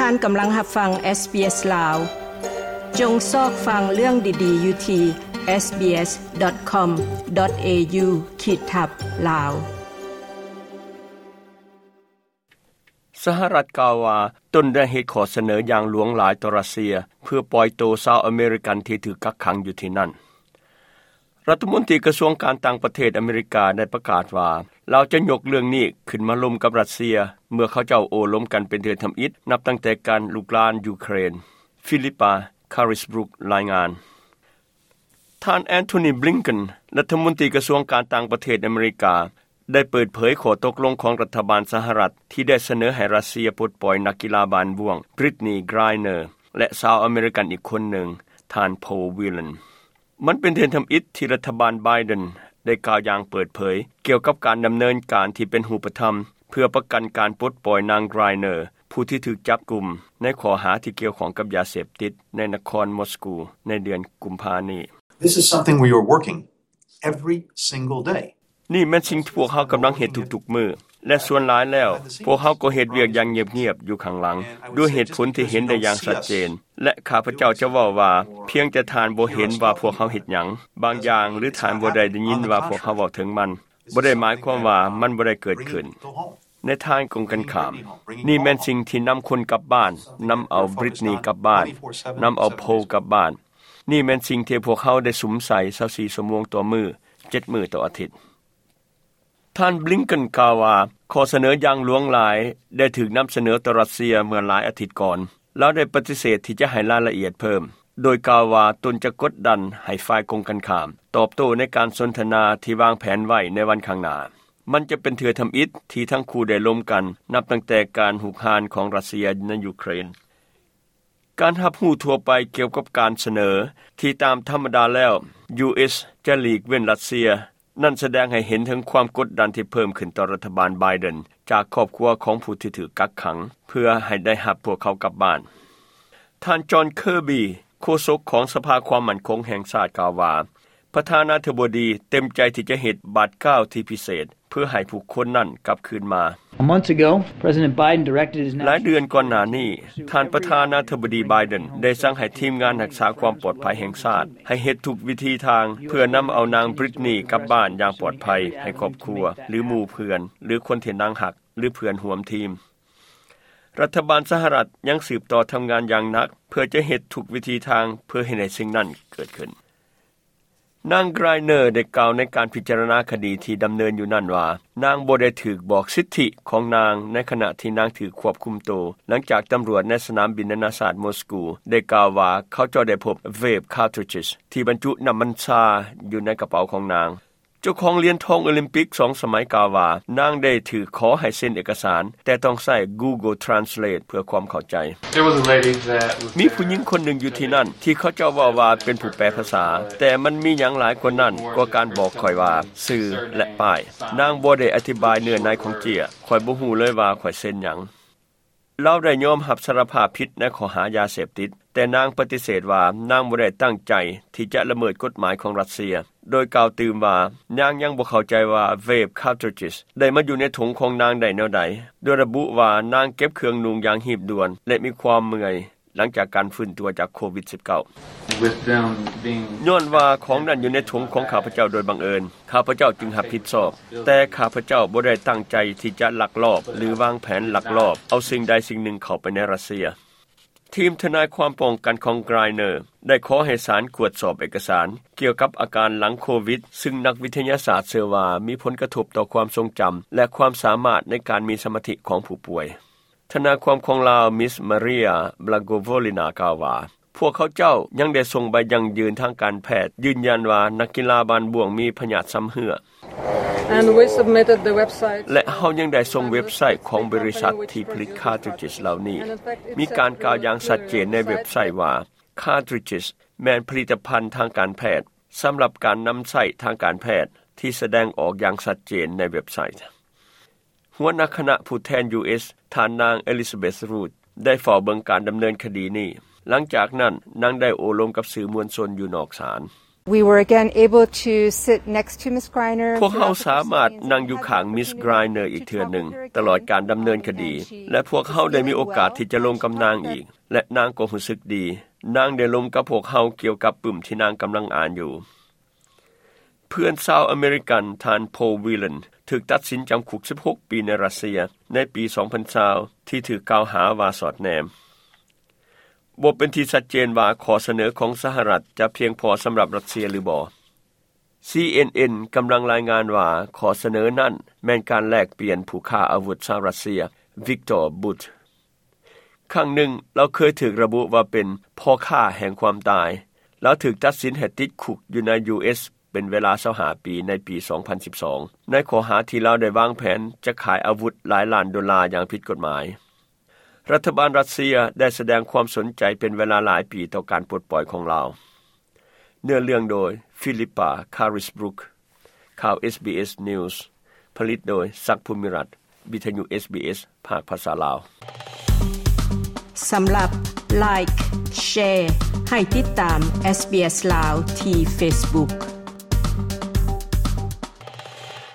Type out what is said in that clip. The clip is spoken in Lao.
ທ່ານກຳລັງຮັບຟັງ SBS ລາວ. ຈົ່ງຊອກຟັງເລື່ອງດີໆຢູ່ທີ່ SBS.com.au ຂີດທັບ Lao. ສະຫະລັດກ່າວວ່າ ຕົນໄດ້ເຮັດຂໍ້ສະເໜີຢ່າງຫຼວງຫຼາຍຕໍ່ຣັດເຊຍ ເພື່ອປ່ອຍໂຕຊາວອາເມລິກັນທີ່ຖືກກັກຂັງຢູ່ທີ່ນັ້ນ. ລັດຖະມົນຕີກະຊວງການຕ່າງປະເທດອາເມລິກາໄດ້ປະກາດວ່າ ລາວຈະຍົກເລື່ອງນີ້ຂຶ້ນມາລົມກັບຣັດເຊຍ ເມື່ອເຂົາເຈົ້າໂອ້ລົມກັນເປັນເທື່ອທຳອິດ ນັບຕັ້ງແຕ່ການລຸກລານຢູເຄຣນ. ຟີລິປາ ຄາຣິສບຣຸກ ລາຍງານ. ທ່ານ Antony Blinken ລັດຖະມົນຕີກະຊວງການຕ່າງປະເທດອາເມລິກາ ໄດ້ເປີດເຜີຍຂໍ້ຕົກລົງຂອງລັດຖະບານສະຫະລັດ ທີ່ໄດ້ສະເໜີໃຫ້ຣັດເຊຍປົດປ່ອຍນັກກິລາບານບ້ວງ Brittney Griner ແລະ ຊາວອາເມລິກັນອີກຄົນໜຶ່ງ ທ່ານ Paul Whelan. ມັນເປັນເທື່ອທຳອິດທີ່ລັດຖະບານ Biden ໄດ້ກ່າວຢ່າງເປີດເຜີຍ ກ່ຽວກັບການດຳເນີນການທີ່ເປັນຮູບປະທຳ ເພື່ອປະກັນການປົດປ່ອຍນາງ Griner ຜູ້ທີ່ຖືກຈັບກຸມໃນຂໍ້ຫາທີ່ກ່ຽວຂ້ອງກັບຢາເສບຕິດໃນນະຄອນມອສກູ ໃນເດືອນກຸມພານີ້. This is something we are working every single day. ນີ້ແມ່ນສິ່ງທີ່ພວກເຮົາກຳລັງເຮັດທຸກໆມື້ ແລະ ສ່ວນຫຼາຍແລ້ວ ພວກເຮົາກໍເຮັດວຽກຢ່າງງຽບໆຢູ່ຂ້າງຫຼັງ ດ້ວຍເຫດຜົນທີ່ເຫັນໄດ້ຢ່າງຊັດເຈນ ແລະ ຂ້າພະເຈົ້າຈະເວົ້າວ່າ ພຽງແຕ່ທ່ານບໍ່ເຫັນວ່າພວກເຮົາເຮັດຫຍັງບາງຢ່າງ ຫຼື ທ່ານບໍ່ໄດ້ໄດ້ຍິນວ່າພວກເຮົາເວົ້າເຖິງມັນ ບໍ່ໄດ້ໝາຍຄວາມວ່າມັນບໍ່ໄດ້ເກີດຂຶ້ນ. ໃນທາງກົງກັນຂ້າມ, ນີ້ແມ່ນສິ່ງທີ່ນຳຄົນກັບບ້ານ, ນຳເອົາ Brittney ກັບບ້ານ, ນຳເອົາ Paul ກັບບ້ານ. ນີ້ແມ່ນສິ່ງທີ່ພວກເຮົາໄດ້ສຸມໃສ່ຊາວສີ່ຊົ່ວໂມງຕໍ່ມື້, ເຈັດມື້ຕໍ່ອາທິດ. ທ່ານ Blinken ກ່າວວ່າ ຂໍ້ສະເໜີຢ່າງຫຼວງຫຼາຍໄດ້ຖືກນຳສະເໜີຕໍ່ຣັດເຊຍເມື່ອຫຼາຍອາທິດກ່ອນ. ລາວໄດ້ປະຕິເສດທີ່ຈະໃຫ້ລາຍລະອຽດເພີ່ມ, ໂດຍກ່າວວ່າຕົນຈະກົດດັນໃຫ້ຝ່າຍກົງກັນຂ້າມຕອບໂຕ້ໃນການສົນທະນາທີ່ວາງແຜນໄວ້ໃນວັນຂ້າງໜ້າ. ມັນຈະເປັນເທື່ອທຳອິດທີ່ທັງຄູ່ໄດ້ລົມກັນ ນັບຕັ້ງແຕ່ການຮຸກຮານຂອງຣັດເຊຍໃນຢູເຄຣນ. ການຮັບຮູ້ທົ່ວໄປກ່ຽວກັບການສະເໜີທີ່ຕາມທຳມະດາແລ້ວ ຢູເອສ ຈະຫຼີກເວັ້ນຣັດເຊຍ ນັ້ນສະແດງໃຫ້ເຫັນເຖິງຄວາມກົດດັນທີ່ເພີ່ມຂຶ້ນຕໍ່ລັດຖະບານ Biden ຈາກຄອບຄົວຂອງຜູ້ທີ່ຖືກກັກຂັງ ເພື່ອໃຫ້ໄດ້ຮັບພວກເຂົາກັບບ້ານ. ທ່ານ John Kirby ໂຄສົກຂອງສະພາຄວາມໝັ້ນຄົງແຫ່ງຊາດກ່າວວ່າ ປະທານາທິບໍດີເຕັມໃຈທີ່ຈະເຮັດບາດກ້າວທີ່ພິເສດ ເພື່ອໃຫ້ຜູ້ຄົນນັ້ນກັບຄືນມາ. A month ago, President Biden directed his ຫຼາຍເດືອນກ່ອນໜ້ານີ້, ທ່ານປະທານາທິບໍດີ Biden ໄດ້ສັ່ງໃຫ້ທີມງານຮັກສາຄວາມປອດໄພແຫ່ງຊາດ ໃຫ້ເຮັດທຸກວິທີທາງ ເພື່ອນຳເອົານາງ Brittney ກັບບ້ານຢ່າງປອດໄພ ໃຫ້ຄອບຄົວ ຫຼື ໝູ່ເພື່ອນ ຫຼື ຄົນທີ່ນາງຮັກ ຫຼື ເພື່ອນຮ່ວມທີມ. ລັດຖະບານສະຫະລັດຍັງສືບຕໍ່ທຳງານຢ່າງໜັກ ເພື່ອຈະເຮັດທຸກວິທີທາງ ເພື່ອເຮັດໃຫ້ສິ່ງນັ້ນເກີດຂຶ້ນ. ນາງ Griner ໄດ້ກ່າວໃນການພິຈາລະນາຄະດີທີ່ດຳເນີນຢູ່ນັ້ນວ່າ ນາງບໍ່ໄດ້ຖືກບອກສິດທິຂອງນາງໃນຂະນະທີ່ນາງຖືກຄວບຄຸມໂຕ ຫຼັງຈາກຕຳຫຼວດໃນສະໜາມບິນນານາຊາດມອສກູໄດ້ກ່າວວ່າ ເຂົາເຈົ້າໄດ້ພົບ vape cartridges ທີ່ບັນຈຸນ້ຳມັນຊາຢູ່ໃນກະເປົາຂອງນາງ. ເຈົ້າຂອງຫຼຽນທອງໂອລິມປິກສອງສະໄໝກ່າວວ່າ ນາງໄດ້ຖືກຂໍໃຫ້ເຊັນເອກະສານ ແຕ່ຕ້ອງໃຊ້ Google Translate ເພື່ອຄວາມເຂົ້າໃຈ. There was a lady that was ມີຜູ້ຍິງຄົນໜຶ່ງຢູ່ທີ່ນັ້ນ ທີ່ເຂົາເຈົ້າເວົ້າວ່າເປັນຜູ້ແປພາສາ, ແຕ່ມັນມີຫຍັງຫຼາຍກວ່ານັ້ນກວ່າການບອກຂ້ອຍວ່າຊື່ ແລະ ປ້າຍ. ນາງບໍ່ໄດ້ອະທິບາຍເນື້ອໃນຂອງເຈ້ຍ, ຂ້ອຍບໍ່ຮູ້ເລີຍວ່າຂ້ອຍເຊັນຫຍັງ. ລາວໄດ້ຍອມຮັບສາລະພາບຜິດໃນຂໍ້ຫາຢາເສບຕິດ, ແຕ່ນາງປະຕິເສດວ່ານາງບໍ່ໄດ້ຕັ້ງໃຈທີ່ຈະລະເມີດກົດໝາຍຂອງຣັດເຊຍ, ໂດຍກ່າວຕື່ມວ່ານາງຍັງບໍ່ເຂົ້າໃຈວ່າ vape cartridges ໄດ້ມາຢູ່ໃນຖົງຂອງນາງໄດ້ແນວໃດ, ໂດຍລະບຸວ່ານາງເກັບເຄື່ອງນຸ່ງຢ່າງຮີບດ່ວນ ແລະ ມີຄວາມເມື່ອຍ ຫຼັງຈາກການຟື້ນຕົວຈາກໂຄວິດສິບເກົ້າ. With them being ຍ້ອນວ່າຂອງນັ້ນຢູ່ໃນຖົງຂອງຂ້າພະເຈົ້າໂດຍບັງເອີນ, ຂ້າພະເຈົ້າຈຶ່ງຮັບຜິດຊອບ, ແຕ່ຂ້າພະເຈົ້າບໍ່ໄດ້ຕັ້ງໃຈທີ່ຈະລັກລອບ ຫຼື ວາງແຜນລັກລອບເອົາສິ່ງໃດສິ່ງໜຶ່ງເຂົ້າໄປໃນຣັດເຊຍ. ທີມທະນາຍຄວາມປ້ອງກັນຂອງ Griner ໄດ້ຂໍໃຫ້ສານກວດສອບເອກະສານກ່ຽວກັບອາການຫຼັງໂຄວິດ, ຊຶ່ງນັກວິທະຍາສາດເຊື່ອວ່າມີຜົນກະທົບຕໍ່ຄວາມຊົງຈຳ ແລະ ຄວາມສາມາດໃນການມີສະມາທິຂອງຜູ້ປ່ວຍ. ທະນາຍຄວາມຂອງລາວ Miss Maria Blagovolina ກ່າວວ່າ ພວກເຂົາເຈົ້າຍັງໄດ້ສົ່ງໃບຢັ້ງຢືນທາງການແພດ ຢືນຢັນວ່ານັກກິລາບານບ້ວງມີພະຍາດຊຳເຮື້ອ And we submitted the website ແລະ ເຮົາຍັງໄດ້ສົ່ງເວັບໄຊຂອງບໍລິສັດທີ່ຜະລິດ cartridges ເຫຼົ່ານີ້. ມີການກ່າວຢ່າງຊັດເຈນໃນເວັບໄຊວ່າ cartridges ແມ່ນຜະລິດຕະພັນທາງການແພດ ສຳລັບການນຳໃຊ້ທາງການແພດ ທີ່ສະແດງອອກຢ່າງຊັດເຈນໃນເວັບໄຊ. ຫົວໜ້າຄະນະຜູ້ແທນ ຢູເອສ ທ່ານນາງ Elizabeth Root ໄດ້ເຝົ້າເບິ່ງການດຳເນີນຄະດີນີ້. ຫຼັງຈາກນັ້ນ, ນາງໄດ້ໂອ້ລົມກັບສື່ມວນຊົນຢູ່ນອກສານ. We were again able to sit next to Miss Griner. ພວກເຮົາສາມາດນັ່ງຢູ່ຂ້າງ Miss Griner ອີກເທື່ອໜຶ່ງ ຕະຫຼອດການດຳເນີນຄະດີ ແລະ ພວກເຮົາໄດ້ມີໂອກາດທີ່ຈະລົມກັບນາງອີກ ແລະ ນາງກໍຮູ້ສຶກດີ. ນາງໄດ້ລົມກັບພວກເຮົາກ່ຽວກັບປຶ້ມທີ່ນາງກຳລັງອ່ານຢູ່. ເພື່ອນຊາວອາເມລິກັນ ທ່ານ Paul Whelan ຖືກຕັດສິນຈຳຄຸກສິບຫົກປີໃນຣັດເຊຍໃນປີສອງພັນຊາວ ທີ່ຖືກກ່າວຫາວ່າສອດແນມ. ບໍ່ເປັນທີ່ຊັດເຈນວ່າຂໍ້ສະເໜີຂອງສະຫະລັດຈະພຽງພໍສຳລັບຣັດເຊຍຫຼືບໍ່. ຊີເອັນເອັນ ກຳລັງລາຍງານວ່າຂໍ້ສະເໜີນັ້ນແມ່ນການແລກປ່ຽນຜູ້ຄ້າອາວຸດຊາວຣັດເຊຍ Viktor Bout. ຄັ້ງໜຶ່ງລາວເຄີຍຖືກລະບຸວ່າເປັນພໍ່ຄ້າແຫ່ງຄວາມຕາຍ. ລາວຖືກຕັດສິນໃຫ້ຕິດຄຸກຢູ່ໃນ ຢູເອສ ເປັນເວລາຊາວຫ້າປີໃນປີສອງພັນສິບສອງ ໃນຂໍ້ຫາທີ່ລາວໄດ້ວາງແຜນຈະຂາຍອາວຸດຫຼາຍລ້ານໂດລາຢ່າງຜິດກົດໝາຍ. ລັດຖະບານຣັດເຊຍໄດ້ສະແດງຄວາມສົນໃຈເປັນເວລາຫຼາຍປີຕໍ່ການປົດປ່ອຍຂອງລາວ. ເນື້ອເລື່ອງໂດຍ Philippa Carisbrook. ຂ່າວ ເອສບີເອສ News ຜະລິດໂດຍ ສັກ ພູມິລັດ, ວິທະຍຸ ເອສບີເອສ ພາກພາສາລາວ. ສຳລັບ Like, Share ໃຫ້ຕິດຕາມ ເອສບີເອສ ລາວ ທີ່ Facebook.